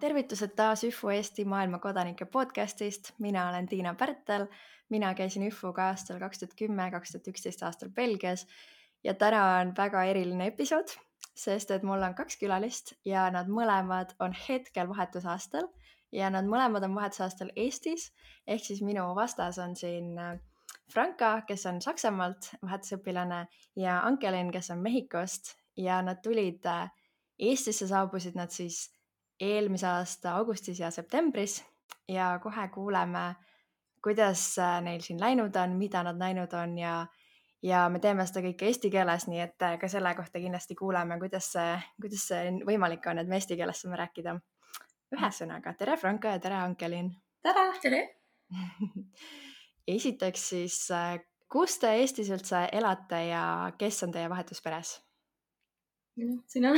Tervitused taas ÜFU Eesti maailma kodanike podcastist. Mina olen Tiina Pärtel. Mina käisin ÜFUga aastal 2010-2011 aastal Belgias ja täna on väga eriline episood, sest et mul on 2 külalist ja nad mõlemad on hetkel vahetusaastal ja nad mõlemad on vahetusaastal Eestis. Ehk siis minu vastas on siin Franka, kes on Saksamaalt vahetusõpilane ja Ankelin, kes on Mehhikost ja nad tulid Eestisse, saabusid nad siis eelmise aasta augustis ja septembris ja kohe kuuleme, kuidas neil siin läinud on, mida nad näinud on ja me teeme seda kõike eesti keeles, nii et ka selle kohta kindlasti kuuleme, kuidas see võimalik on, et me eesti keeles saame rääkida. Ühesõnaga, tere Franka ja tere Ankelin! Tere! Esiteks siis, kus te Eestis üldse elate ja kes on teie vahetusperes? Sina?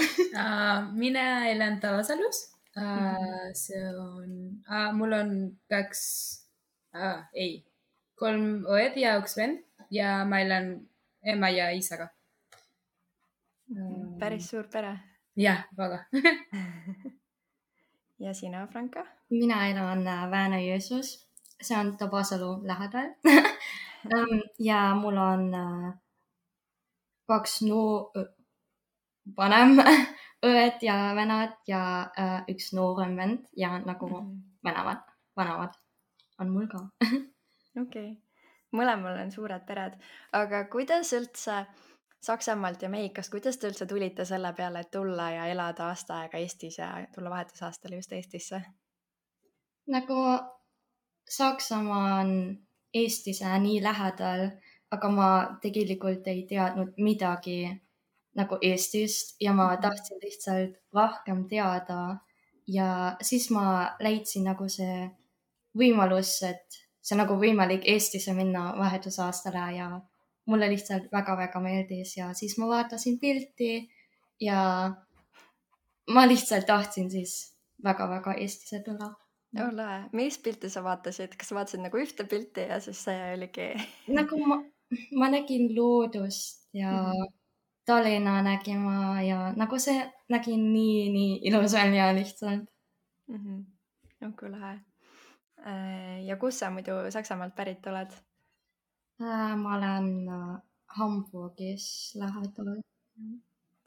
Mina elan Tabasalus. See on, mul on 3 õed ja 1 vend ja ma elan ema ja isaga. Päris suur pere. Jah, väga. Ja sina, Franka? Mina elan Väänö-Jõesuus. See on Tabasalu lähedal. Ja mul on 2 vanem õed ja venad ja 1 noorem vend ja nagu vanemad on mul ka. Okei. Mõlemal on suured pered. Aga kuidas üldse Saksamaalt ja Mehhikost, kuidas te üldse tulite selle peale, et tulla ja elada aasta aega Eestis ja tulla vahetusaastale just Eestisse? Nagu Saksamaa on Eestise nii lähedal, aga ma tegelikult ei teadnud midagi nagu Eestist ja ma tahtsin lihtsalt rohkem teada ja siis ma leidsin nagu see võimalus, et see on nagu võimalik Eestisse minna vahetusaastale ja mulle lihtsalt väga-väga meeldis ja siis ma vaatasin pilti ja ma lihtsalt tahtsin siis väga-väga Eestisse tulla. Lahe. Millist pilti sa vaatasid? Kas sa vaatasid nagu ühte pilti ja siis see oligi? Nagu ma nägin loodust ja Tallinna nägima ja nagu see nägin nii ilus välja lihtsalt. Onko lahe. Ja kus sa muidu Saksamaalt pärit oled? Ma olen Hamburgis lähedal.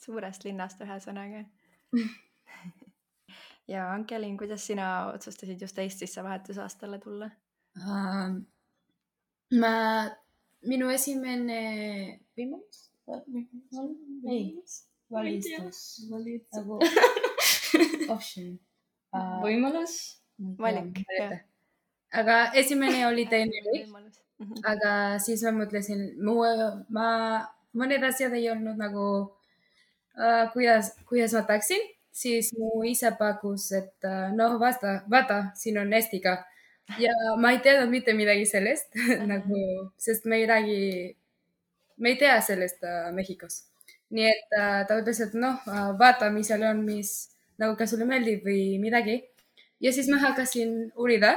Suurest linnast ühesõnaga. Ja Ankelin, kuidas sina otsustasid just Eestisse vahetusaastale tulla? Minu esimene võimalus? Valik. Aga esimene oli teine võimalus. Aga siis ma mõtlesin, mõned asjad ei olnud nagu, kuidas ma tahaksin. Siis mu isa pakkus, et vaata, siin on Eestiga. Ja ma ei teadnud mitte midagi sellest, nagu, sest me ei tea sellest Mehhikos. Nii et ta ütles, et vaata, mis seal on, nagu kas sulle meeldib või midagi. Ja siis ma hakkasin uurima.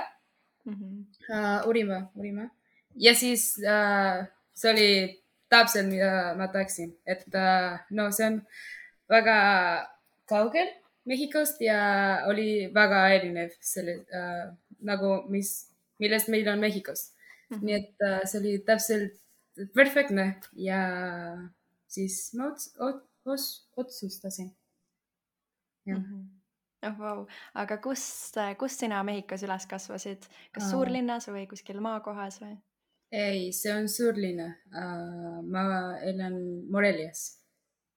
Ja siis see oli täpselt, mida ma tahaksin. Et see on väga kaugel Mehhikost ja oli väga erinev selle, nagu millest meil on Mehhikos. Nii et see oli täpselt perfektne ja siis ma otsustasin. Wow. Aga kus sina Mehhikos üles kasvasid? Kas suurlinnas või kuskil maakohas või? Ei, see on suurlinna. Ma elan Morelias.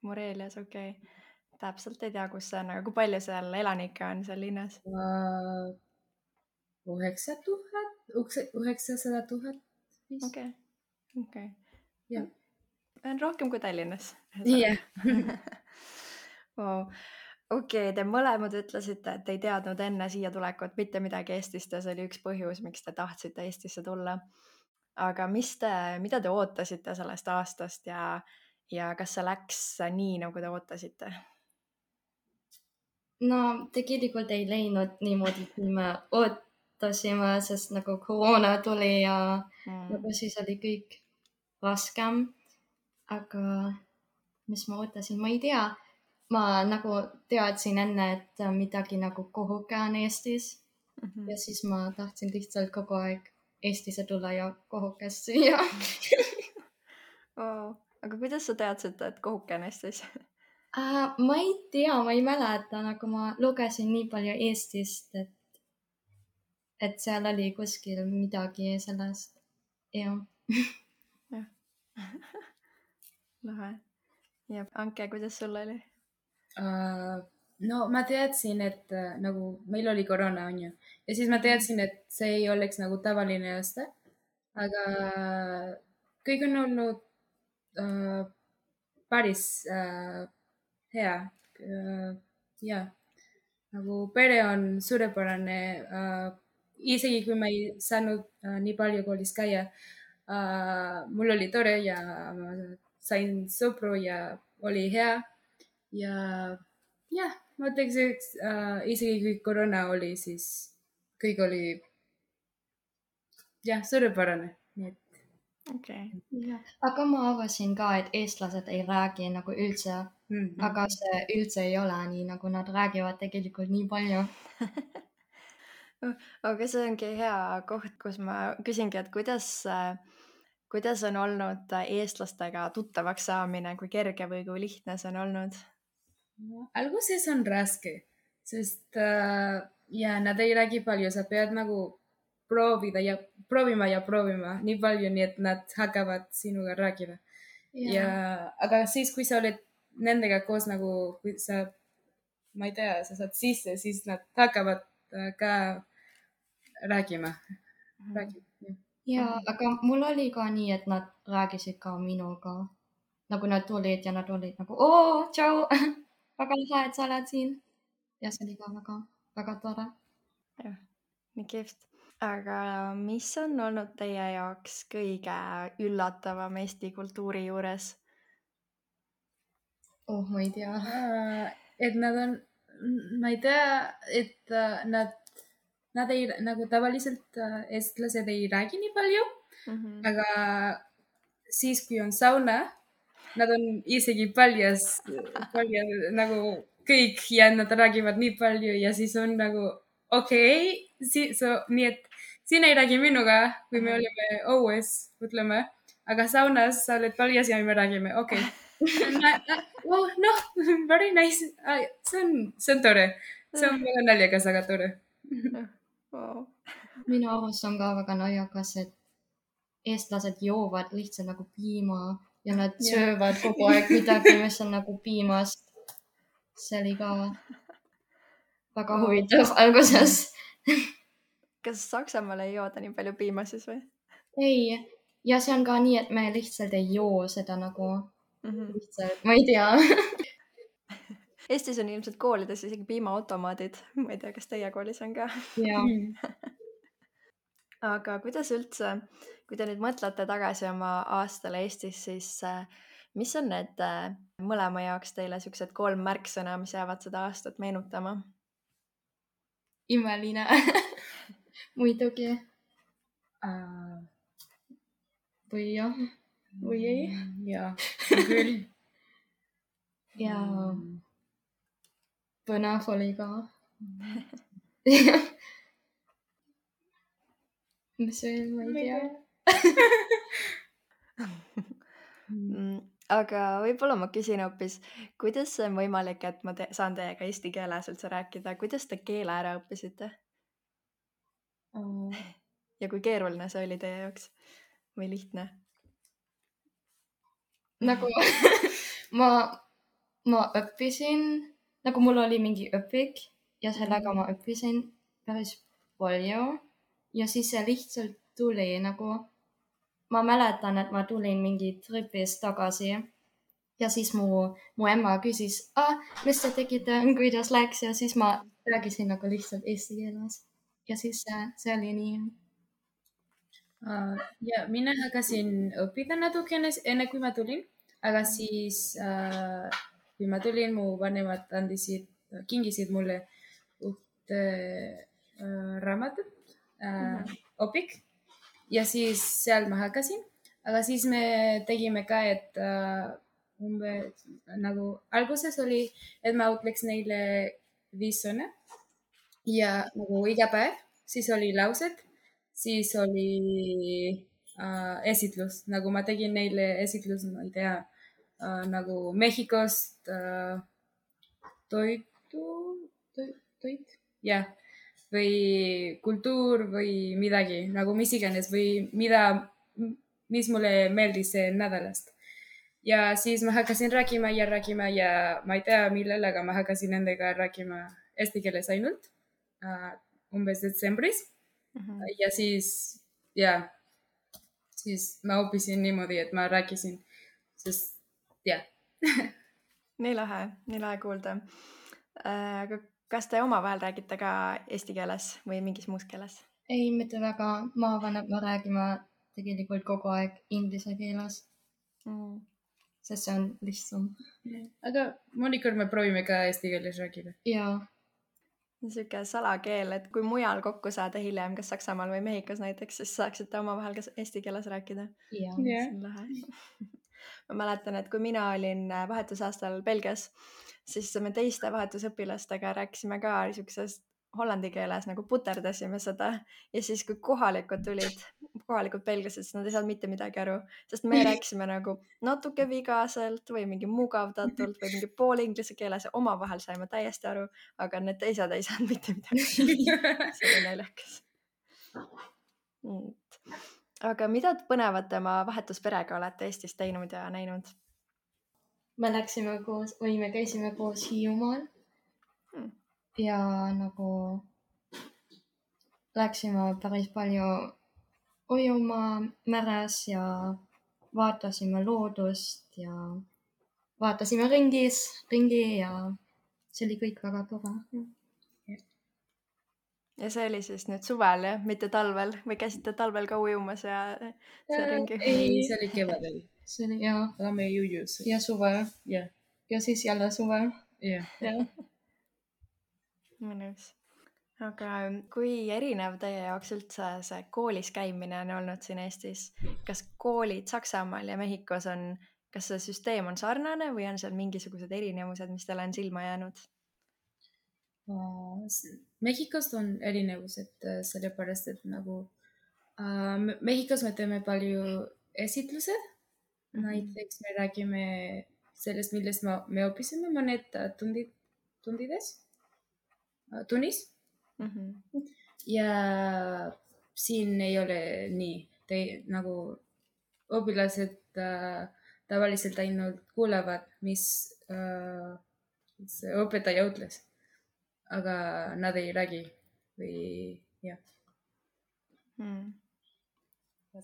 Morelias, okei. Täpselt ei tea, kus see on, aga kui palju seal elanikke on seal linnas? 900 000. Okei. On rohkem kui Tallinnas. Jah. Wow. Okei, te mõlemad ütlesite, et ei teadnud enne siia tulekut mitte midagi Eestist ja see oli üks põhjus, miks te tahtsite Eestisse tulla. Aga mida te ootasite sellest aastast ja kas see läks nii, nagu te ootasite? No tegelikult ei läinud niimoodi, kui me ootasime, sest nagu koroona tuli ja nagu siis oli kõik raskem. Aga mis ma ootasin, ma ei tea. ma nagu teadsin enne, et midagi nagu kohuke on Eestis ja siis ma tahtsin lihtsalt kogu aeg Eestisse tulla ja kohukest süüa. Oh, aga kuidas sa teadsid, et kohuke on Eestis? Ma ei tea, ma ei mäleta, nagu ma lugesin nii palju Eestist, et seal oli kuskil midagi sellest. Jah. Lahe. Ja Anke, kuidas sul oli? No ma teadsin, et nagu meil oli koroona, on ju. Ja siis ma teadsin, et see ei oleks nagu tavaline aasta. Aga kõik on olnud päris hea. Ja nagu pere on suurepärane. Isegi kui ma ei saanud nii palju koolis käia, mul oli tore ja ma sain sõpru ja oli hea. Ja jah, ma ütleks, et isegi kui koroona oli, siis kõik oli jah, suurepärane. Okay. Aga ma arvasin ka, et eestlased ei räägi nagu üldse, aga see üldse ei ole nii, nagu nad räägivad tegelikult nii palju. Aga see ongi hea koht, kus ma küsingi, et kuidas on olnud eestlastega tuttavaks saamine, kui kerge või kui lihtne see on olnud? Alguses on raske, sest ja nad ei räägi palju, sa pead nagu proovima nii palju, nii et nad hakkavad sinuga rääkima. Aga siis, kui sa oled nendega koos nagu, kui sa, ma ei tea, sa saad sisse, siis nad hakkavad ka rääkima. Aga mul oli ka nii, et nad rääkisid ka minuga. Nagu nad tulid ja nad olid nagu, oo, tšau, väga lahe, et sa oled siin. Ja see oli ka väga tore. Jah, nii kihvt. Aga mis on olnud teie jaoks kõige üllatavam Eesti kultuuri juures? Ma ei tea. Et nad on, ma ei tea, et nad ei, nagu tavaliselt eestlased ei räägi nii palju, aga siis, kui on sauna, nad on isegi paljas nagu kõik ja nad räägivad nii palju ja siis on nagu okei, nii et siin ei räägi minuga, kui me olime õues, ütleme, aga saunas sa oled paljas ja me räägime, okei. Noh, very nice. See on tore. See on väga naljakas, aga tore. Minu arust on ka väga naljakas, et eestlased joovad lihtsalt nagu piima ja nad söövad kogu aeg midagi, mis on nagu piimast. See oli ka väga huvitav alguses. Kas Saksamaal ei jooda nii palju piima siis või? Ei, ja see on ka nii, et me lihtsalt ei joo seda nagu lihtsalt, ma ei tea. Eestis on ilmselt koolides isegi piimaautomaadid. Ma ei tea, kas teie koolis on ka? Aga kuidas üldse, kui te nüüd mõtlete tagasi oma aastale Eestis, siis mis on need mõlema jaoks teile siuksed 3 märksõna, mis jäävad seda aastat meenutama? Imeline. Muidugi. Või jah, või ei. Jaa, küll. Ja põnev oli ka. Mis veel, ma ei tea. Aga võib-olla ma küsin hoopis, kuidas see on võimalik, et ma saan teiega eesti keeles üldse rääkida? Kuidas te keele ära õppisite? Ja kui keeruline see oli teie jaoks või lihtne? Nagu ma õppisin, nagu mul oli mingi õpik ja sellega ma õppisin päris palju ja siis see lihtsalt tuli nagu, ma mäletan, et ma tulin mingi tripist tagasi ja siis mu ema küsis, mis te tegite, kuidas läks ja siis ma rääkisin nagu lihtsalt eesti keeles ja siis see oli nii. Ja mina hakkasin õppida natukene enne, kui ma tulin, aga siis kui ma tulin, mu vanemad kingisid mulle ühte raamatut, õpik ja siis seal ma hakkasin, aga siis me tegime ka, et umbes nagu alguses oli, et ma ütleks neile 5 sõna ja nagu iga päev, siis oli laused, siis oli esitlus, nagu ma tegin neile esitlus, ma ei tea, nagu Mehhikost toit, jah, või kultuur või midagi nagu mis iganes või mis mulle meeldis nädalast. Ja siis ma hakkasin rääkima ja ma ei tea millal, aga ma hakkasin nendega rääkima eesti keeles ainult umbes detsembris. Ja siis ma õppisin niimoodi, et ma rääkisin, sest jah. Nii lahe kuulda. Aga kas te omavahel räägite ka eesti keeles või mingis muus keeles? Ei, mitte väga. Ma räägime tegelikult kogu aeg inglise keeles. Sest see on lihtsam. Aga mõnikord me proovime ka eesti keeles rääkida. Jaa. Siuke salakeel, et kui mujal kokku saada hiljem, kas Saksamaal või Mehhikos näiteks, siis saaksite omavahel ka eesti keeles rääkida. Jaa. See on lahe. Ma mäletan, et kui mina olin vahetusaastal Belgias, siis me teiste vahetusõpilastega rääkisime ka niisuguses hollandi keeles, nagu puterdasime seda. Ja siis, kui kohalikud belgiased, siis nad ei saanud mitte midagi aru, sest me rääkisime nagu natuke vigaselt või mingi mugavdatult või mingi pool inglise keeles ja omavahel saime täiesti aru, aga need teised ei saanud mitte midagi. See oli naljakas. Aga mida põnevat oma vahetusperega olete Eestis teinud ja näinud? Me käisime koos Hiiumaal ja nagu läksime päris palju ujuma meres ja vaatasime loodust ja vaatasime ringi ja see oli kõik väga tore. Ja see oli siis nüüd suvel, jah? Mitte talvel? Või käisite talvel ka ujumas ja see ringi? Ei, see oli kevadel. See oli, jaa. Aga me ei ujus. Ja suvel. Jah. Ja siis jälle suvel. Jah. Mõnus. Aga kui erinev teie jaoks üldse see koolis käimine on olnud siin Eestis? Kas koolid Saksamaal ja Mehhikos kas see süsteem on sarnane või on seal mingisugused erinevused, mis teile on silma jäänud? Mehhikost on erinevused sellepärast, et nagu Mehhikos me teeme palju esitlused. Näiteks me räägime sellest, millest me õppisime mõned tunnis. Ja siin ei ole nii, nagu õpilased tavaliselt ainult kuulevad, mis õpetaja ütles. Aga nad ei räägi või jah.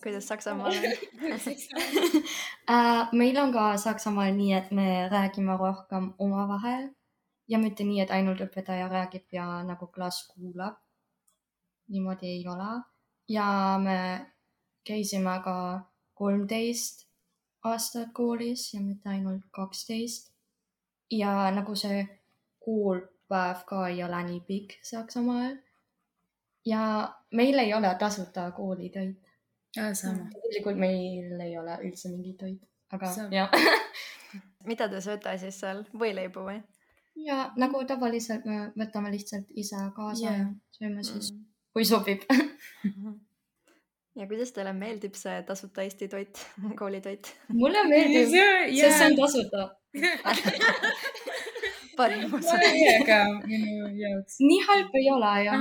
Kuidas Saksamaal on? Meil on ka Saksamaal nii, et me räägime rohkem omavahel ja mitte nii, et ainult õpetaja räägib ja nagu klass kuulab. Niimoodi ei ole. Ja me käisime ka 13 aastat koolis ja mitte ainult 12. Ja nagu see koolpäev ka ei ole nii pikk Saksamaal. Ja meil ei ole tasuta koolitoit. Sama. Tegelikult meil ei ole üldse mingi toit. Aga jah. Mida te sööte siis seal? Võileibu või? Ja nagu tavaliselt me võtame lihtsalt ise kaasa ja sööme siis, kui sobib. Ja kuidas teile meeldib see tasuta Eesti toit, koolitoit? Mulle meeldib, sest see on tasuta. Parim osa. Ka minu jaoks. Nii halb ei ole, jah.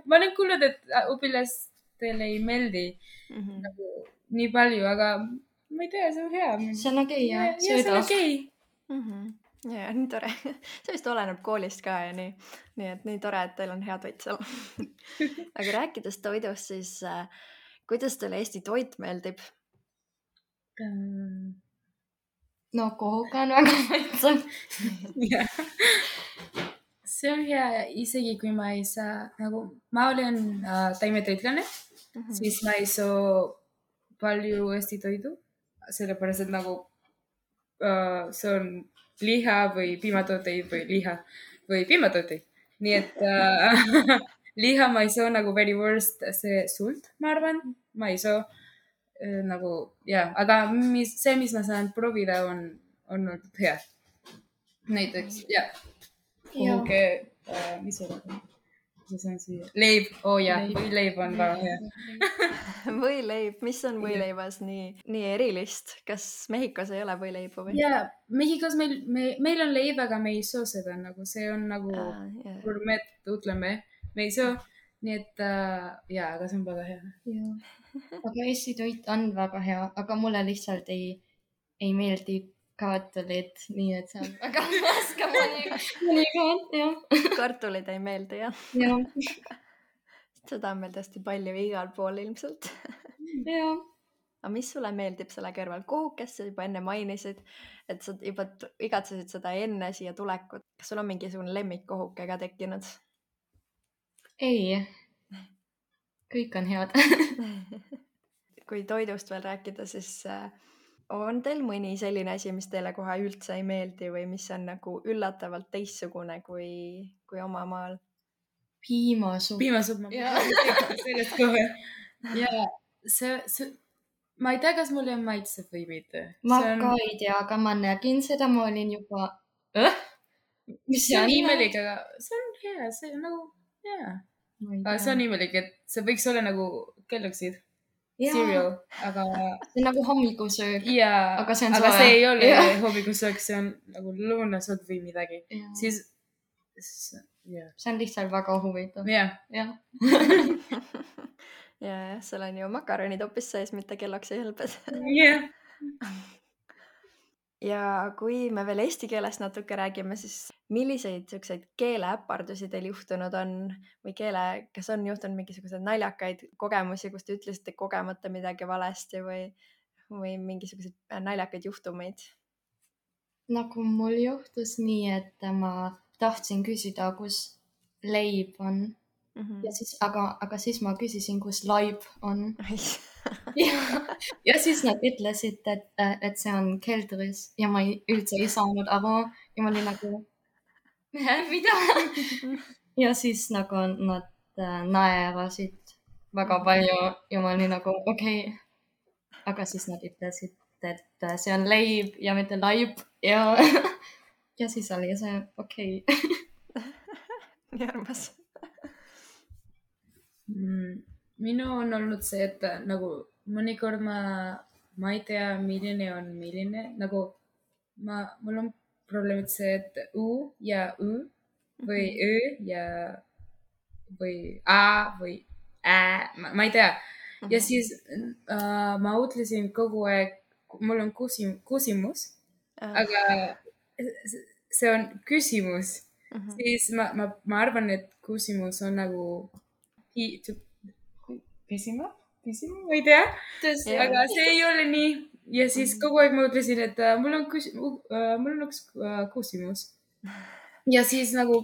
Ma olen kuulnud, et õpilastele ei meeldi nagu nii palju, aga ma ei tea, see on hea. See on okei, jah. See on okei. Ja, nii tore. See vist oleneb koolist ka ja nii. Nii et nii tore, et teil on hea toit seal. Aga rääkides toidust, siis kuidas teile Eesti toit meeldib? No kohuga on väga maitsev. See on hea, isegi kui ma ei saa, nagu ma olen taimetoitlane, siis ma ei saa palju Eesti toidu, sellepärast, et nagu see on liha või piimatooteid või liha või piimatooteid. Nii et liha ma ei saa nagu very worst see sult, ma arvan, ma ei saa. nagu aga see, mis ma saan proovida, on olnud hea. Näiteks kuhugi, mis see on? Leib, võileib on väga hea. Võileib, mis on võileibas nii erilist? Kas Mehhikos ei ole võileibu või? Mehhikos meil on leib, aga me ei soo seda, nagu see on nagu gourmet, ütleme, me ei soo, nii et aga see on väga hea. Aga Eesti toit on väga hea, aga mulle lihtsalt ei meeldi kartulid, nii et see on väga raske mõnikord, jah. Kartulid ei meeldi, jah? Jah. Seda on meil tõesti palju igal pool ilmselt. Jah. Aga mis sulle meeldib selle kõrval? Kohukest sa juba enne mainisid, et sa juba igatsesid seda enne siia tulekut. Kas sul on mingisugune lemmikkohuke ka tekkinud? Ei. Kõik on head. Kui toidust veel rääkida, siis on teil mõni selline asi, mis teile kohe üldse ei meeldi või mis on nagu üllatavalt teistsugune kui oma maal? Piimasupp. Ma sellest kohe. Ma ei tea, kas mulle maitseb või mitte. Ma ka ei tea, aga ma nägin seda, ma olin juba... Mis see on imelik, aga see on hea, see on nagu hea. See on imelik, et see võiks olla nagu kelluksid. Cereal, aga... See on nagu hommikusöök. Aga see ei ole hommikusöök, see on nagu lõunasöök või midagi. Siis... See on lihtsalt väga huvitav. Ja, seal on ju makaronid hoopis sees, mitte kelloksi helbed. Ja kui me veel eesti keelest natuke räägime, siis milliseid selliseid keeleäpardusi teil juhtunud on või kas on juhtunud mingisugused naljakaid kogemusi, kus te ütlesite kogemata midagi valesti või mingisuguseid naljakaid juhtumeid? Nagu mul juhtus nii, et ma tahtsin küsida, kus leib on. Ja siis, aga siis ma küsisin, kus laib on. Ja siis nad ütlesid, et see on keldris ja ma üldse ei saanud aru ja ma olin nagu, mida? Ja siis nagu nad naerasid väga palju ja ma olin nagu, okei. Aga siis nad ütlesid, et see on leib ja mitte laib ja siis oli see okei. Nii armas. Minu on olnud see, et nagu mõnikord ma ei tea, milline on milline, nagu mul on probleemid see, et U ja Ü või Ö ja või A või Ä, ma ei tea. Ja siis ma ütlesin kogu aeg, mul on küsimus, aga see on küsimus. Siis ma arvan, et küsimus on nagu pisima, ma ei tea, aga see ei ole nii. Ja siis kogu aeg ma ütlesin, et mul on üks küsimus. Ja siis nagu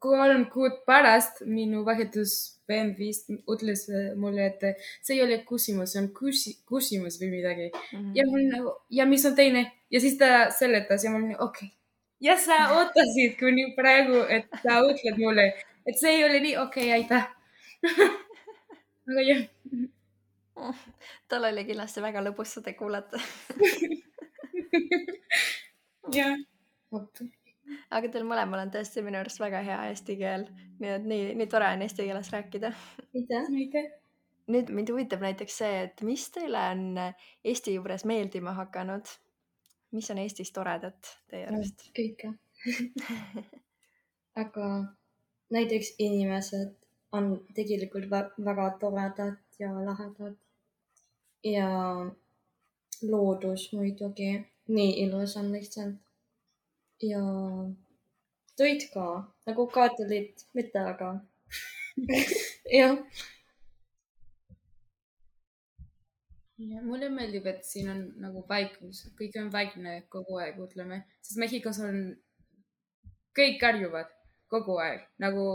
3 kuud pärast minu vahetusvend vist ütles mulle, et see ei ole küsimus, see on küsimus või midagi. Ja mul nagu, ja mis on teine? Ja siis ta seletas ja mul oli okei. Ja sa ootasid kuni praegu, et sa ütled mulle, et see ei ole nii okei, aitäh. Aga jah. Tal oli kindlasti väga lõbus seda kuulata. Jah. Aga teil mõlemal on tõesti minu arust väga hea eesti keel. Nii et nii tore on eesti keeles rääkida. Aitäh. Nüüd mind huvitab näiteks see, et mis teile on Eesti juures meeldima hakanud? Mis on Eestis toredat teie arust? Kõike. Aga näiteks inimesed on tegelikult väga toredad ja lahedad. Ja loodus muidugi. Nii ilus on lihtsalt. Ja toit ka. Nagu kartulid, mitte aga. Jah. Mulle meeldib, et siin on nagu vaikus. Kõik on vaikne kogu aeg, ütleme. Sest Mehhikos on kõik karjuvad kogu aeg. Nagu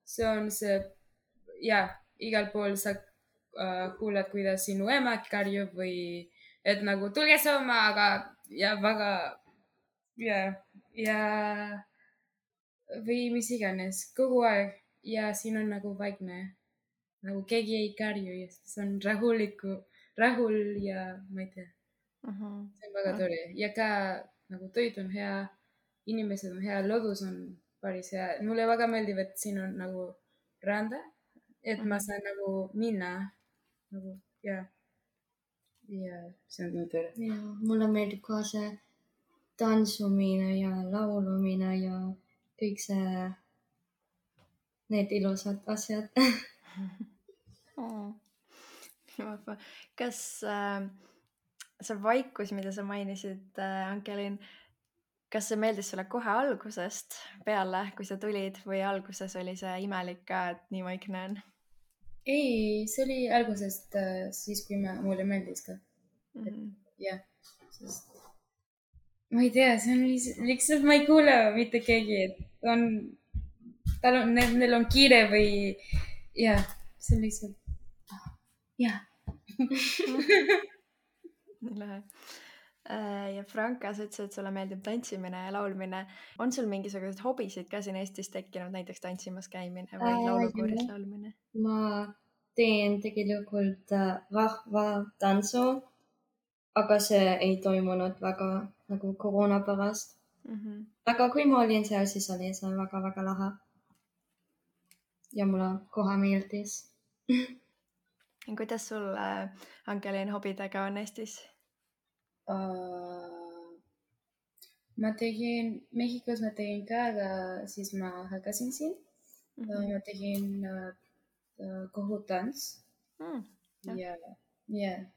see on see, igal pool sa kuuled, kuidas sinu ema karjub või et nagu tulge sööma, aga väga või mis iganes kogu aeg ja siin on nagu vaikne. Nagu keegi ei karju ja see on rahuliku rahul ja ma ei tea. See on väga tore ja ka nagu toit on hea, inimesed on hea, loodus on päris hea. Mulle väga meeldib, et siin on nagu randa, et ma saan nagu minna nagu ja see on nii tore. Ja mulle meeldib ka see tantsumine ja laulumine ja kõik see, need ilusad asjad. Kas see vaikus, mida sa mainisid, Ankelin, kas see meeldis sulle kohe algusest peale, kui sa tulid või alguses oli see imelik ka, et nii vaikne on? Ei, see oli algusest siis, kui mulle meeldis ka. Jah, sest ma ei tea, see on lihtsalt, ma ei kuule mitte keegi, et neil on kiire või jah, see on lihtsalt, jah. Nii lahe. Ja Franka, sa ütlesid, et sulle meeldib tantsimine ja laulmine. On sul mingisuguseid hobisid ka siin Eestis tekkinud, näiteks tantsimas käimine või laulukooris laulmine? Ma teen tegelikult rahvatantsu, aga see ei toimunud väga nagu koroona pärast. Aga kui ma olin seal, siis oli see väga-väga lahe. Ja mulle kohe meeldis. Kuidas sul, Ankelin, hobidega on Eestis? Mehhikos ma tegin ka, aga siis ma hakkasin siin. Ma tegin kohutants. Ja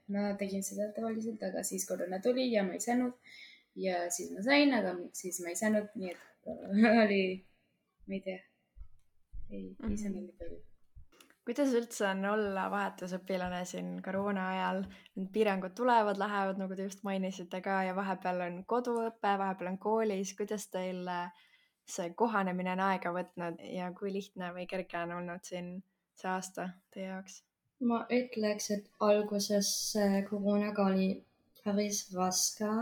ma tegin seda tavaliselt, aga siis koroona tuli ja ma ei saanud. Ja siis ma sain, aga siis ma ei saanud. Nii et oli, ma ei tea, ei saanud nii palju. Kuidas üldse on olla vahetusõpilane siin koroona ajal? Need piirangud tulevad, lähevad, nagu te just mainisite ka, ja vahepeal on koduõpe, vahepeal on koolis. Kuidas teil see kohanemine on aega võtnud ja kui lihtne või kerge on olnud siin see aasta teie jaoks? Ma ütleks, et alguses koroonaga oli päris raske,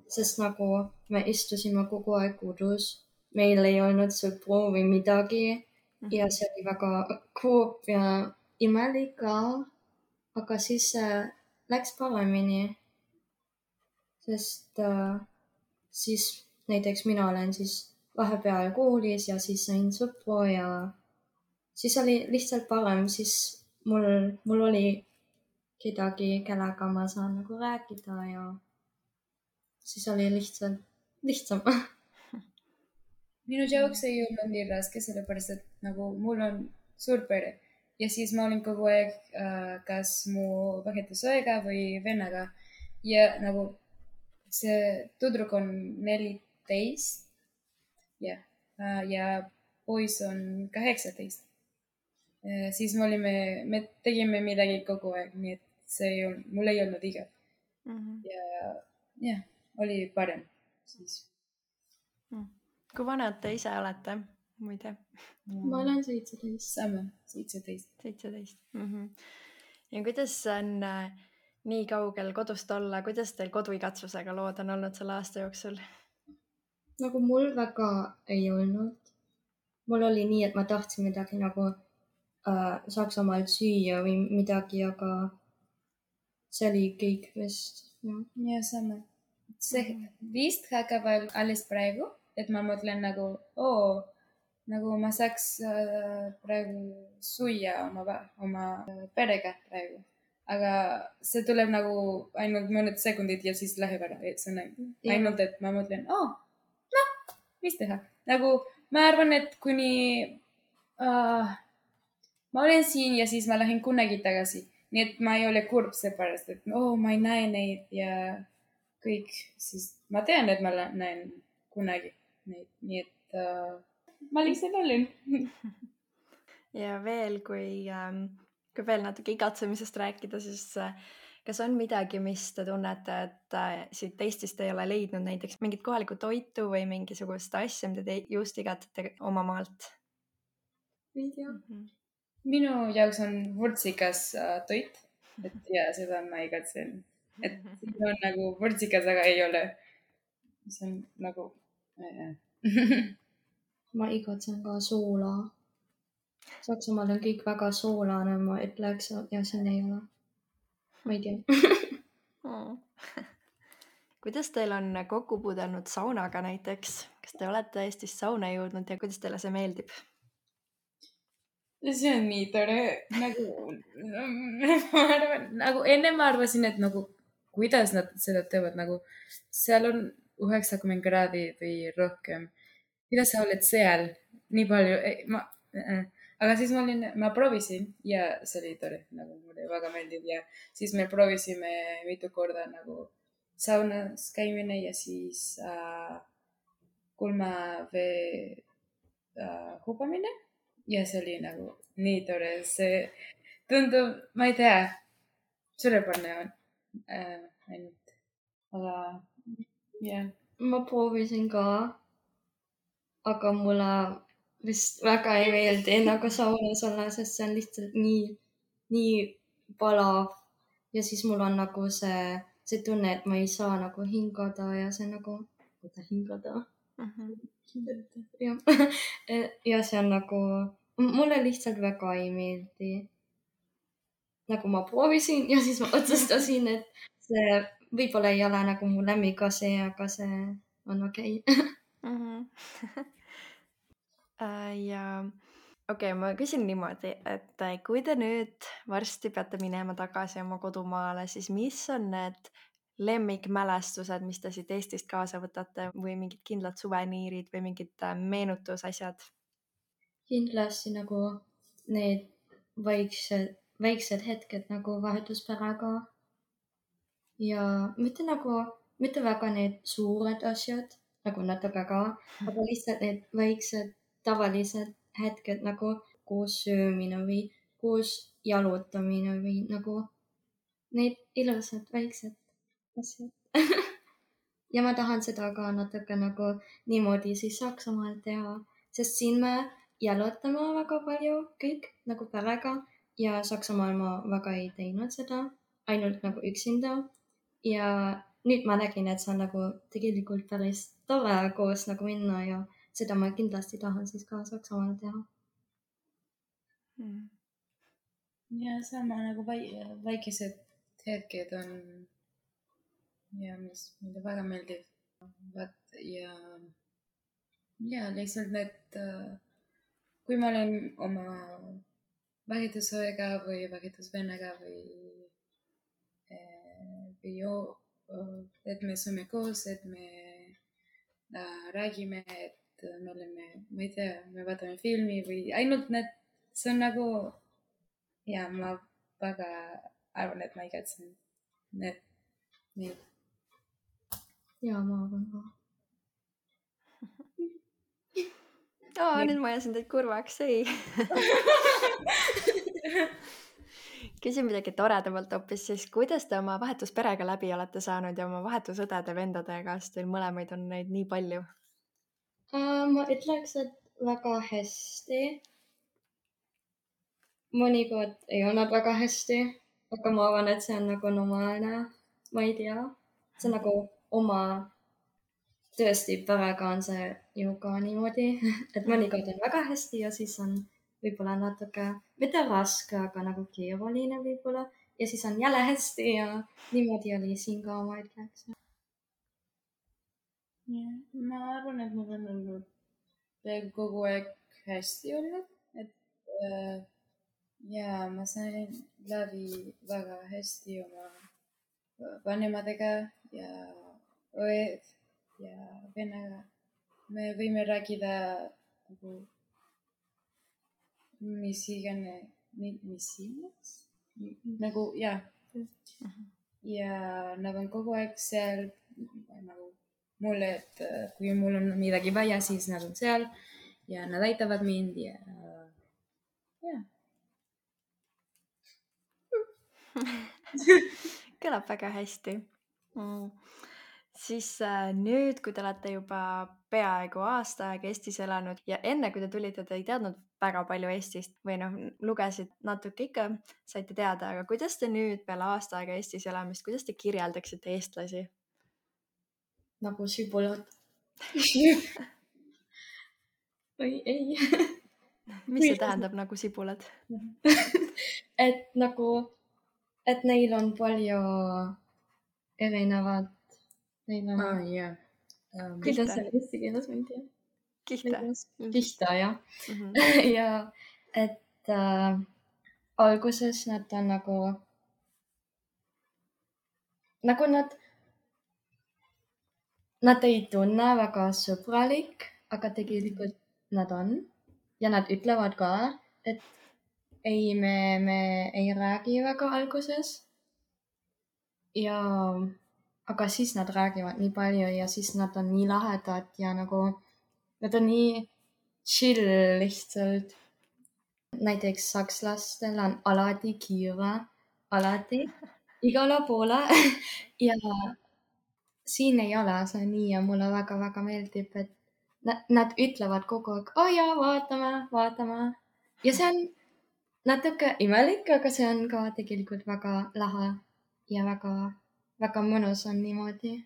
sest nagu me istusime kogu aeg kodus. Meil ei olnud sõpru või midagi. Ja see oli väga kurb ja imelik ka, aga siis läks paremini, sest siis näiteks mina olen siis vahepeal koolis ja siis sain sõpru ja siis oli lihtsalt parem, siis mul oli kedagi, kellega ma saan nagu rääkida ja siis oli lihtsam. Minu jaoks ei olnud nii raske, sellepärast et nagu mul on suur pere ja siis ma olin kogu aeg kas mu vahetusõega või vennaga ja nagu see tüdruk on 14 ja poiss on 18. Siis me tegime midagi kogu aeg, nii et mul ei olnud igav. Ja oli parem siis. Kui vanad te ise olete, muide? Ma olen 17. Sama, 17. 17. Ja kuidas on nii kaugel kodust olla, kuidas teil koduigatsusega lood on olnud selle aasta jooksul? Nagu mul väga ei olnud. Mul oli nii, et ma tahtsin midagi nagu Saksamaalt süüa või midagi, aga see oli kõik vist. Ja sama. See vist hakkab alles praegu. Et ma mõtlen nagu, nagu ma saaks praegu süüa oma perega praegu. Aga see tuleb nagu ainult mõned sekundid ja siis läheb ära. Et see on ainult, et ma mõtlen, mis teha? Nagu ma arvan, et kuni ma olen siin ja siis ma lähen kunagi tagasi. Nii et ma ei ole kurb seepärast, et ma ei näe neid ja kõik. Siis ma tean, et ma näen kunagi. Nii et ma lihtsalt olen. Ja veel, kui veel natuke igatsemisest rääkida, siis kas on midagi, mis te tunnete, et siit Eestist ei ole leidnud näiteks mingit kohalikku toitu või mingisugust asja, mida te just igatsete oma maalt? Ei tea. Minu jaoks on vürtsikas toit, ja seda ma igatsen. Et siin on nagu vürtsikas, aga ei ole. See on nagu... Ma igatsen ka soola. Saksamaal on kõik väga soolane, ma ütleks, ja siin ei ole. ma ei tea. Kuidas teil on kokku puudelnud saunaga näiteks? Kas te olete Eestis sauna jõudnud ja kuidas teile see meeldib? See on nii tore, nagu ma arvan, nagu enne ma arvasin, et nagu kuidas nad seda teevad, nagu seal on 90 kraadi või rohkem. Kuidas sa oled seal nii palju? Aga siis ma proovisin ja see oli tore, nagu mulle väga meeldib ja siis me proovisime mitu korda nagu saunas käimine ja siis kulmavee hubamine ja see oli nagu nii tore, see tundub, ma ei tea, suurepärane on ainult, aga jah. Ma proovisin ka, aga mulle vist väga ei meeldi nagu saunas olla, sest see on lihtsalt nii palav ja siis mul on nagu see tunne, et ma ei saa nagu hingada ja see nagu, hingada. Ja see on nagu, mulle lihtsalt väga ei meeldi. Nagu ma proovisin ja siis ma otsustasin, et see võib-olla ei ole nagu mu lemmikasi, aga see on okei. Ja okei, ma küsin niimoodi, et kui te nüüd varsti peate minema tagasi oma kodumaale, siis mis on need lemmikmälestused, mis te siit Eestist kaasa võtate või mingid kindlad suveniirid või mingid meenutusasjad? Kindlasti nagu need väiksed hetked nagu vahetusperega ja mitte väga need suured asjad, nagu natuke ka, aga lihtsalt need väiksed tavalised hetked nagu koos söömine või koos jalutamine või nagu need ilusad väiksed asjad. Ja ma tahan seda ka natuke nagu niimoodi siis Saksamaal teha, sest siin me jalutame väga palju kõik nagu perega ja Saksamaal ma väga ei teinud seda, ainult nagu üksinda. Ja nüüd ma nägin, et see on nagu tegelikult päris tore koos nagu minna ja seda ma kindlasti tahan siis ka Saksamaal teha. Ja sama nagu väikesed hetked on ja mis mulle väga meeldib. Ja lihtsalt need, kui ma olen oma vahetusõega või vahetusvennaga või et me sööme koos, et me räägime, et me oleme, ma ei tea, me vaatame filmi või ainult need, see on nagu ja ma väga arvan, et ma igatsen need. Ja ma arvan ka. Nüüd ma ajasin teid kurvaks, ei. Küsin midagi toredamalt hoopis, siis kuidas te oma vahetusperega läbi olete saanud ja oma vahetusõdede vendadega, sest teil mõlemaid on neid nii palju? Ma ütleks, et väga hästi. Mõnikord ei olnud väga hästi, aga ma arvan, et see on nagu normaalne. Ma ei tea. See on nagu oma tõesti perega on see ju ka niimoodi, et mõnikord on väga hästi ja siis on võib-olla natuke, mitte raske, aga nagu keeruline võib-olla ja siis on jälle hästi ja niimoodi oli siin ka, ma ütleks. Ma arvan, et mul on olnud kogu aeg hästi olnud, et ja ma sain läbi väga hästi oma vanematega ja õed ja vennaga. Me võime rääkida nagu mis iganes, nagu ja nad on kogu aeg seal nagu mulle, et kui mul on midagi vaja, siis nad on seal ja nad aitavad mind ja. Kõlab väga hästi. Siis nüüd, kui te olete juba peaaegu aasta aega Eestis elanud ja enne, kui te tulite, te ei teadnud väga palju Eestist või lugesid natuke ikka, saite teada, aga kuidas te nüüd peale aasta aega Eestis elamist, kuidas te kirjeldaksite eestlasi? Nagu sibulad. Või ei. Mis see tähendab nagu sibulad? Et nagu et neil on palju erinevad, neil on jah. kuidas see on eesti keeles, ma ei tea. Kihta, jah. ja et alguses nad on nagu nad ei tunne väga sõbralik, aga tegelikult nad on ja nad ütlevad ka, et ei, me ei räägi väga alguses. ja aga siis nad räägivad nii palju ja siis nad on nii lahedad ja nagu nad on nii chill lihtsalt. Näiteks sakslastel on alati kiire, alati igale poole ja siin ei ole see nii ja mulle väga-väga meeldib, et nad ütlevad kogu aeg, jaa, vaatame. Ja see on natuke imelik, aga see on ka tegelikult väga lahe ja väga mõnus on niimoodi.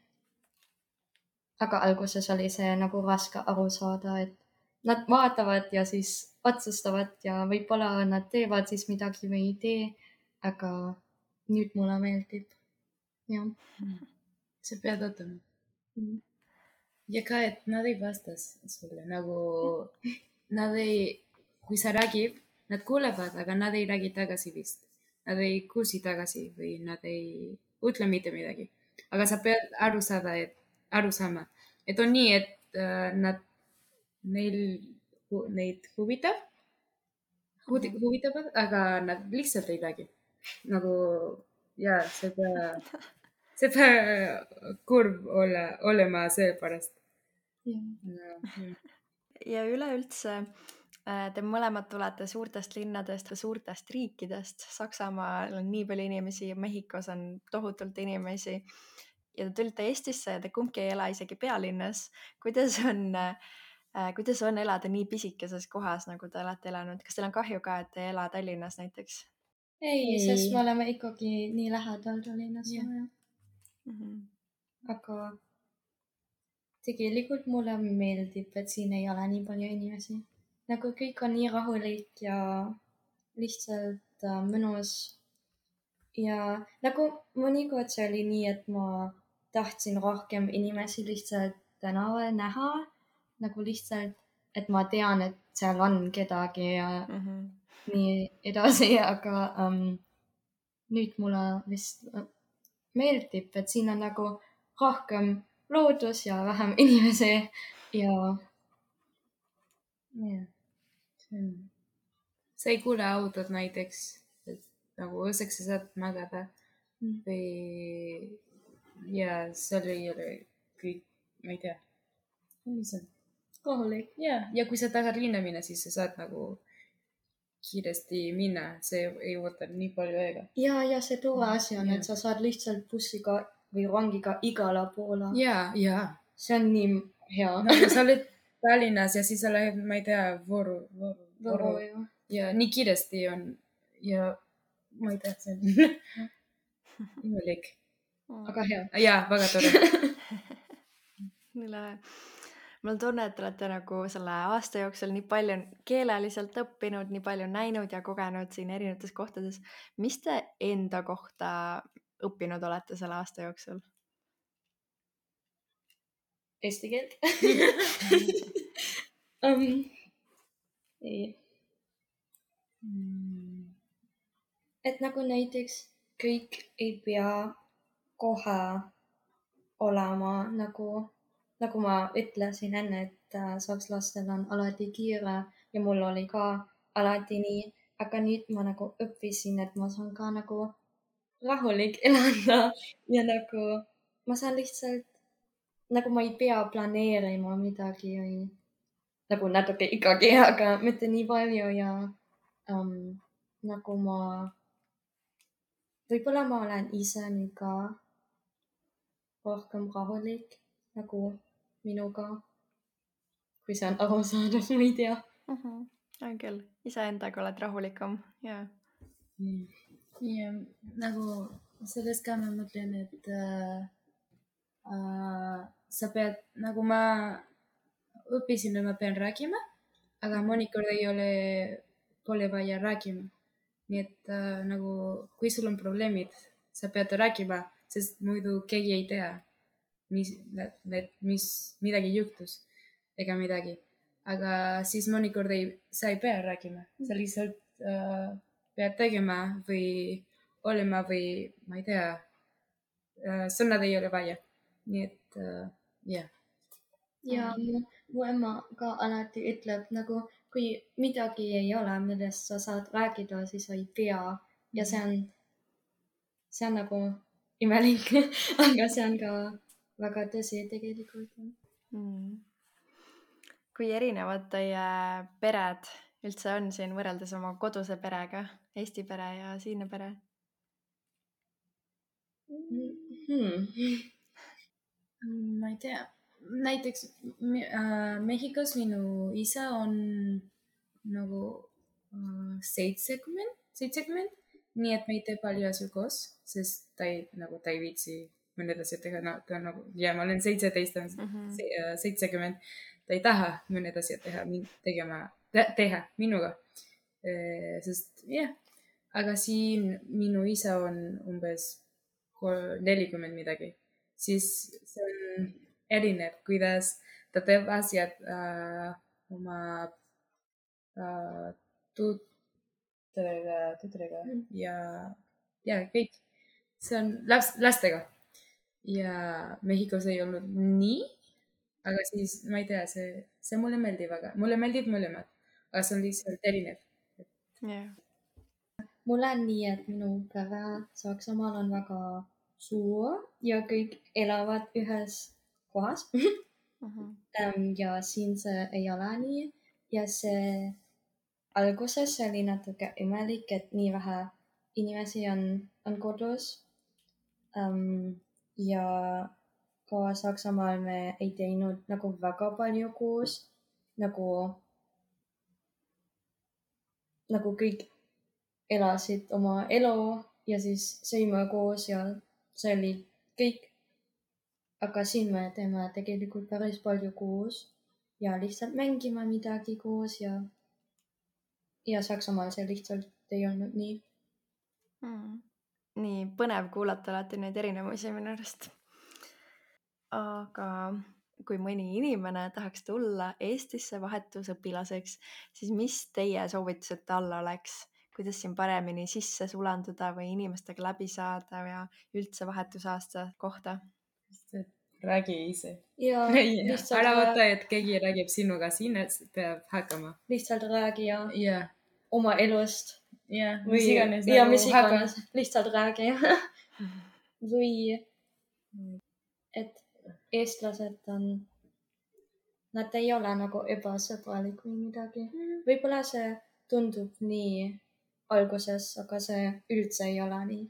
Aga alguses oli see nagu raske aru saada, et nad vaatavad ja siis otsustavad ja võib-olla nad teevad siis midagi või ei tee, aga nüüd mulle meeldib. Jah. Sa pead ootama. Ja ka, et nad ei vasta sulle nagu, kui sa räägib, nad kuulevad, aga nad ei räägi tagasi vist. Nad ei kuulsi tagasi või nad ei ütle mitte midagi. Aga sa pead aru saama, et on nii, et neid huvitavad, aga nad lihtsalt ei räägi. Nagu, jaa, see peab kurb olema seepärast. Ja üleüldse te mõlemad tulete suurtest linnadest või suurtest riikidest. Saksamaal on nii palju inimesi ja Mehhikos on tohutult inimesi. Ja te tulite Eestisse ja te kumbki ei ela isegi pealinnas. Kuidas on elada nii pisikeses kohas, nagu te olete elanud? Kas teil on kahju ka, et te ei ela Tallinnas näiteks? Ei, sest me oleme ikkagi nii lähedal Tallinnas. Aga tegelikult mulle meeldib, et siin ei ole nii palju inimesi. Nagu kõik on nii rahulik ja lihtsalt mõnus. Ja nagu mõnikord see oli nii, et ma tahtsin rohkem inimesi lihtsalt tänaval näha. Nagu lihtsalt, et ma tean, et seal on kedagi ja nii edasi, aga nüüd mulle vist meeldib, et siin on nagu rohkem loodus ja vähem inimesi ja sa ei kuule autod näiteks, et nagu õseks sa saad magada või ja seal ei ole kõik, ma ei tea, mis on rahulik. Ja kui sa tahad linna minna, siis sa saad nagu kiiresti minna, see ei võta nii palju aega. Ja see tore asi on, et sa saad lihtsalt bussiga või rongiga igale poole. Ja. See on nii hea. Nagu sa oled Tallinnas ja siis sa lähed, ma ei tea, Võru. Ja nii kiiresti on ja ma ei tea, see on imelik. Aga hea. Ja, väga tore. Mul on tunne, et te olete nagu selle aasta jooksul nii palju keeleliselt õppinud, nii palju näinud ja kogenud siin erinevates kohtades. Mis te enda kohta õppinud olete selle aasta jooksul? Eesti keelt. Et nagu näiteks kõik ei pea kohe olema nagu ma ütlesin enne, et sakslastel on alati kiire ja mul oli ka alati nii, aga nüüd ma nagu õppisin, et ma saan ka nagu rahulik elada ja nagu ma saan lihtsalt, nagu ma ei pea planeerima midagi või nagu natuke ikkagi, aga mitte nii palju ja nagu võib-olla ma olen ise nüüd ka rohkem rahulik nagu minuga, kui see on arusaadav, ma ei tea. On küll, iseendaga oled rahulikam, jaa. Ja nagu sellest ka ma mõtlen, et sa pead, nagu ma õppisin, et ma pean rääkima, aga mõnikord pole vaja rääkima. nii et nagu kui sul on probleemid, sa pead rääkima, sest muidu keegi ei tea, mis midagi juhtus ega midagi. Aga siis mõnikord sa ei pea rääkima, sa lihtsalt pead tegema või olema või ma ei tea, sõnad ei ole vaja. Nii et jah. Ja mu ema ka alati ütleb nagu, kui midagi ei ole, millest sa saad rääkida, siis sa ei pea. Ja see on nagu imelik, aga see on ka väga tõsi tegelikult. Kui erinevad teie pered üldse on siin võrreldes oma koduse perega, Eesti pere ja siinne pere? Ma ei tea. Näiteks Mehhikos minu isa on nagu 70, nii et me ei tee palju asju koos, sest ta ei viitsi mõned asjad teha. Ta nagu, ja ma olen 17, 70. Ta ei taha mõned asjad teha minuga. Sest jah, aga siin minu isa on umbes 40 midagi. Siis see on erinev, kuidas ta teeb asjad oma tuttudega ja kõik. See on lastega. Ja Mehhikos ei olnud nii, aga siis ma ei tea, see mulle meeldib väga. Mulle meeldib mõlemad, aga see on lihtsalt erinev. Mulle on nii, et minu pere Saksamaal on väga suur ja kõik elavad ühes kohas. Ja siin see ei ole nii. Ja see alguses oli natuke imelik, et nii vähe inimesi on kodus. Ja ka Saksamaal me ei teinud nagu väga palju koos. Nagu kõik elasid oma elu ja siis sõime koos ja see oli kõik. Aga siin me teeme tegelikult päris palju koos ja lihtsalt mängime midagi koos ja Saksamaal see lihtsalt ei olnud nii. Nii põnev kuulata alati neid erinevusi minu arust. Aga kui mõni inimene tahaks tulla Eestisse vahetusõpilaseks, siis mis teie soovitused talle oleks? Kuidas siin paremini sisse sulanduda või inimestega läbi saada ja üldse vahetusaasta kohta? Räägi ise. Ja ära võta, et keegi räägib sinuga, siin peab hakkama. Lihtsalt räägi ja oma elust. Ja mis iganes. Lihtsalt räägi. Või et eestlased nad ei ole nagu ebasõbralik või midagi. Võib-olla see tundub nii alguses, aga see üldse ei ole nii.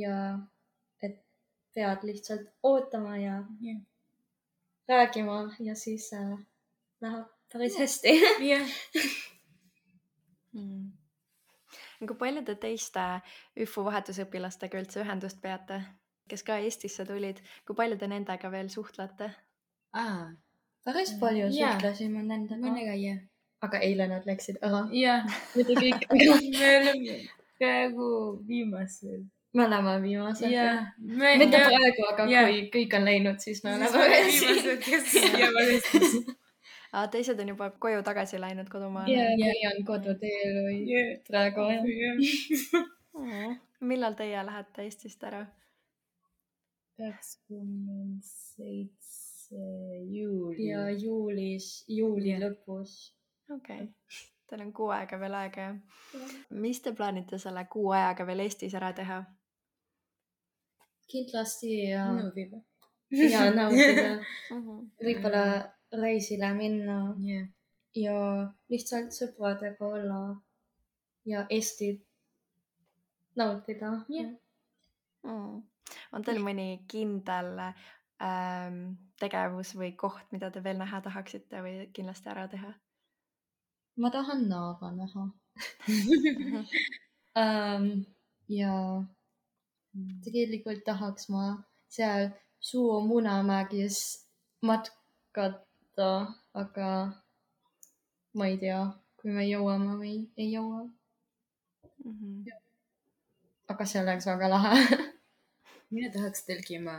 Ja et pead lihtsalt ootama ja räägima ja siis läheb päris hästi. Kui palju te teiste ÜFU vahetusõpilastega üldse ühendust peate, kes ka Eestisse tulid? Kui palju te nendega veel suhtlete? Päris palju suhtlesime nendega. Mõnega, jah. Aga eile nad läksid ära. Jah. Mitte kõik. Me oleme praegu viimased. Me oleme viimased. Mitte praegu, aga kui kõik on läinud, siis me oleme viimased, kes jäävad Eestisse. Teised on juba koju tagasi läinud kodumaale. Või on koduteel või praegu. Millal teie lähete Eestist ära? 27. juuli. Ja juuli lõpus. Okei. Teil on 6 aega veel aega, jah? Mis te plaanite selle 6 ajaga veel Eestis ära teha? Kindlasti Naudida. Ja naudida. Võib-olla reisile minna ja lihtsalt sõpradega olla ja Eestit nautida. On teil mõni kindel tegevus või koht, mida te veel näha tahaksite või kindlasti ära teha? Ma tahan Naava näha. Ja tegelikult tahaks ma seal Suur-Munamägis matkata, aga ma ei tea, kui me jõuame või ei jõua. aga see oleks väga lahe. Mina tahaks telkima.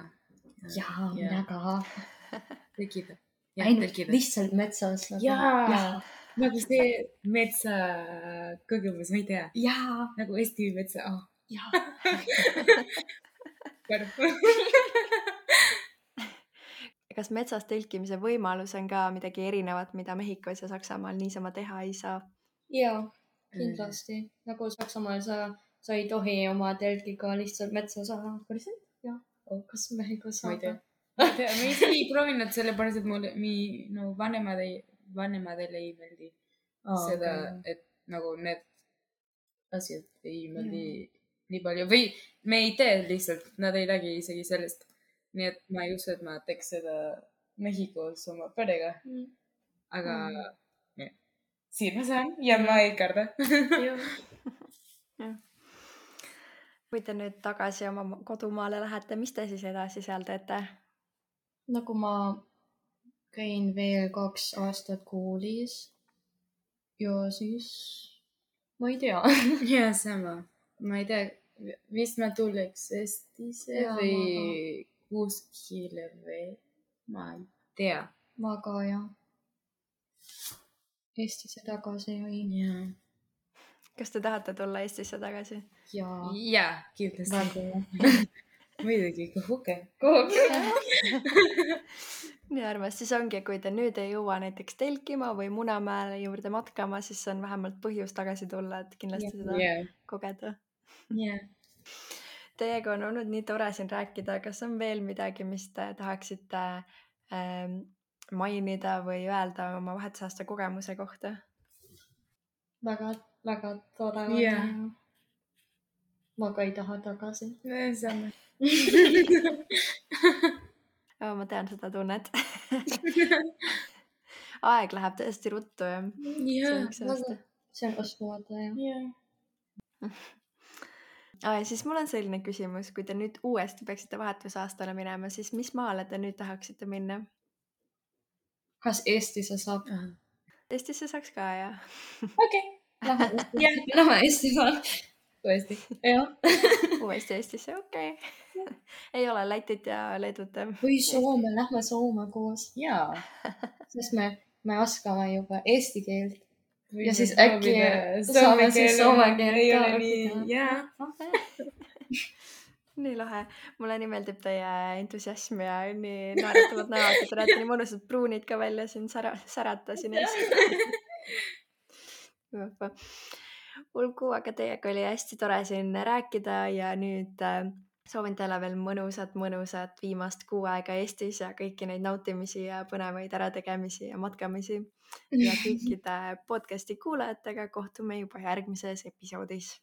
Jaa, mina ka. Telkida. Ainult lihtsalt metsas. Jaa. Nagu see metsa kogemus, ma ei tea. Jaa. Nagu Eesti metsa. Jaa. Kas metsas telkimise võimalus on ka midagi erinevat, mida Mehhikos ja Saksamaal niisama teha ei saa? Jaa, kindlasti. Nagu Saksamaal sa ei tohi oma telkiga lihtsalt metsa saada. Päriselt? Jah. Kas Mehhikos saab? Ma ei tea. Ma isegi ei proovinud sellepärast, et mulle vanemadele ei meeldi seda, et nagu need asjad ei meeldi nii palju. Või me ei tee lihtsalt, nad ei räägi isegi sellest. Nii et ma ei usu, et ma teeks seda Mehhikos oma perega. Aga siin ma saan ja ma ei karda. Kui te nüüd tagasi oma kodumaale lähete, mis te siis edasi seal teete? Nagu ma käin veel 2 aastat koolis ja siis ma ei tea. Ja sama. Ma ei tea, vist ma tuleks Eestisse või kuskile või ma ei tea. Ma ka jah. Eestisse tagasi või? Jaa. Kas te tahate tulla Eestisse tagasi? Jaa. Jaa, kindlasti. Muidugi, kuhuke. Nii armas, siis ongi, kui te nüüd ei jõua näiteks telkima või Munamäele juurde matkama, siis on vähemalt põhjus tagasi tulla, et kindlasti seda kogeda. Teiega on olnud nii tore siin rääkida. Kas on veel midagi, mis te tahaksite mainida või öelda oma vahetusaasta kogemuse kohta? Väga, väga tore. Ma ka ei taha tagasi. Sama. Ma tean seda tunnet. Aeg läheb tõesti ruttu. See on uskumatu. Siis mul on selline küsimus, kui te nüüd uuesti peaksite vahetusaastale minema, siis mis maale te nüüd tahaksite minna? Kas Eestisse saab? Eestisse saaks ka, jah. Okei. Lähme Eestisse. Uuesti. Uuesti Eestisse, okei. Ei ole Lätit ja Leedut. Või Soome, lähme Soome koos. Jaa. Sest me oskame juba eesti keelt. Ja siis äkki saame siis soome keelt ka õppida. Nii lahe. Mulle nii meeldib teie entusiasm ja nii naeratavad näod, et te näete nii mõnusad pruunid ka välja siin särata siin ees. Ulgu, aga teiega oli hästi tore siin rääkida ja nüüd soovin teile veel mõnusat viimast kuu aega Eestis ja kõiki neid nautimisi ja põnevaid ärategemisi ja matkamisi. Ja kõikide podcasti kuulajatega kohtume juba järgmises episoodis.